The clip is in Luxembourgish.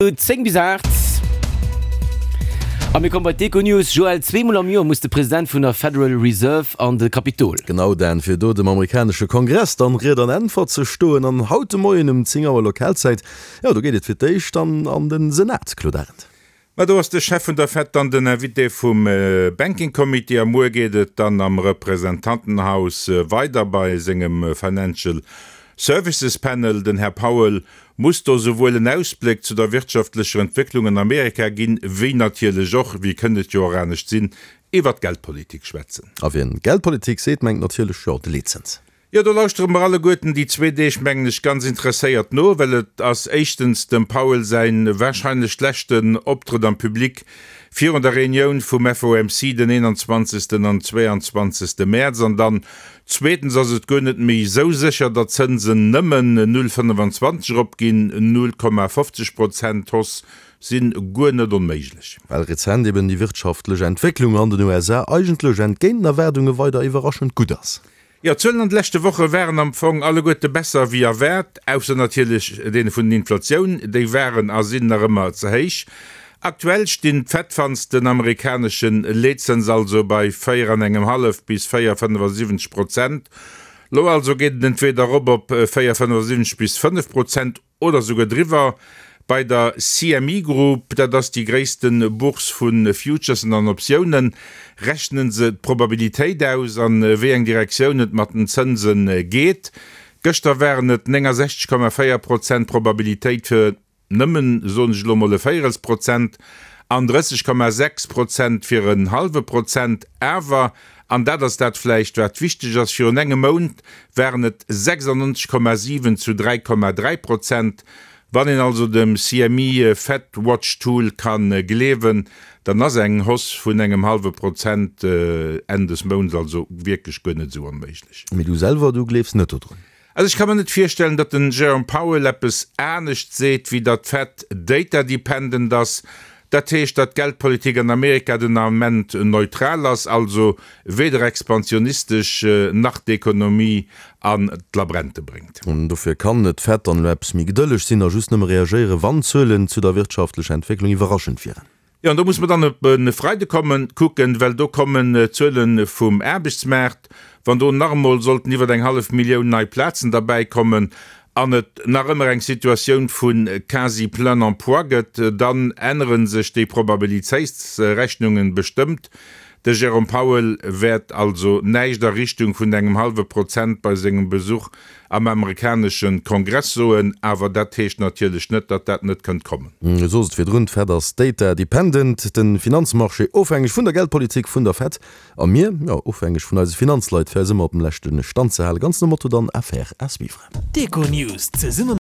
10 bis 8. A mir komme bei d'Econews. Joël, zweemol am Joer muss de President vun der Federal Reserve an de Kapitol. Genau, Dan, fir do dem amerikanesche Kongress dann Ried an Äntwert ze stoen. An haut de Moien um 10 Auer Lokalzäit, jo, do geet et fir d'éischt dann an de Senat, Claude Arend. Ma do ass de Chef vun der Fed dann den Invité vum Banking Committee a muer geet et dann am Representantenhaus weider bei sengem Financial Services Panel. Den Här Powell muss do souwuel en Ausbléck zu der wirtschaftlecher Entwécklung an Amerika ginn, wéi natierlech och, wéi kënnt et jo och anescht sinn, iwwert d'Geldpolitik schwätzen. A wien Geldpolitik seet, mengt natierlech, jo, de Leetzëns. Jo, do lauschtere mer alleguerten déi zwee Deeg, mengen ech, ganz interesséiert no, well et ass éischtens dem Powell säin wahrscheinlech leschten Optrëtt am Public virun der Reunioun vum FOMC den 21. an 22. Mäerz an dann Zweetens ass et guer net méi esou sécher, datt d'Zënsen nëmmen 0,25 eropginn, 0,50 Prozent Hausse si guer net onméiglech. Well rezent eben déi wirtschaftlech Entwécklung an den USA eigentlech entgéint den Erwaardunge weider iwwerraschend gutt ass. Jo, d'Zuelen an de leschte Woche waren am Fong alleguerte besser wéi erwaart, ausser natierlech deene vun den Inflatioun, déi waren a sinn nach ëmmer ze héich. Aktuell stinn d'Fed-Funds den amerikanesche Leetzëns also bei 4 an engem hallef bis 4,75 Prozent. Lo also geet et entweeder erop op 4,75 bis 5 Prozent oder souguer driwwer. Bei der CME Group, dat ass déi gréisste Bourse vu Futuresen an Optiounen, rechne se d'Probabilitéit aus, an wéi eng Direktioun et mat den Zënse geet. Gëschter waren et 69,4 Prozent Probabilitéit fir nëmmen, soen ech elo mol, e Véierelsprozent an 30,6 Prozent fir en hallwe Prozent. Awer, an dat ass dat vläicht, wat wichteg ass, virun engem Mount waren et 96,7 zu 3,3 Prozent. Wann een also dem CME Fed Watch Tool ka gleewen, dann ass eng Hausse vun engem hallwe Prozent Enn des Mounts also wierklech guer net esou onméiglech. Mee du selwer, du gleefs net dodrun? Also ech ka mer net virstellen, datt den Jerome Powell eppes anescht seet, wéi datt d'Fed data dependent ass. Dat heescht, datt d'Geldpolitik an Amerika den Ament neutral ass, also weder expansionistesch nach d'Ekonomie an d'Labrente bréngt. An dofir kann d'Fed dann elo eppes méi gedëlleg sinn a just nëmme reagéieren, wann d'Zuelen zu der wirtschaftlecher Entwécklung iwwerraschend wieren. Jo, an do muss mer dann op e Freide kommen, kucken, well do kommen d'Zuele vum Aarbechtsmaart. Wann do nach emol sollten iwwer eng hallef Millioun nei Plazen derbäikommen an et nach ëmmer eng Situatioun vu quasi plein emploi gëtt, dann ännere sech déi Probabilitéitsrechnungen bestëmmt. De Jérôme Powell wäert also näischt a Richtung vun engem hallwe Prozent bei sengem Besuch am amerikanesche Kongress soen, awer dat heescht natierlech net, datt dat net kënnt kommen. Du sos et virdrun, d'Fed ass data dependent, de Finanzmarché ofhängeg vun der Geldpolitik vun der Fed a mir, jo, ofhängeg vun eise Finanzleit, fir eis ëmmer op dem leschte Stand ze halen. Ganz nom Motto dann, Affaire à suivre. D'Econews zesumme.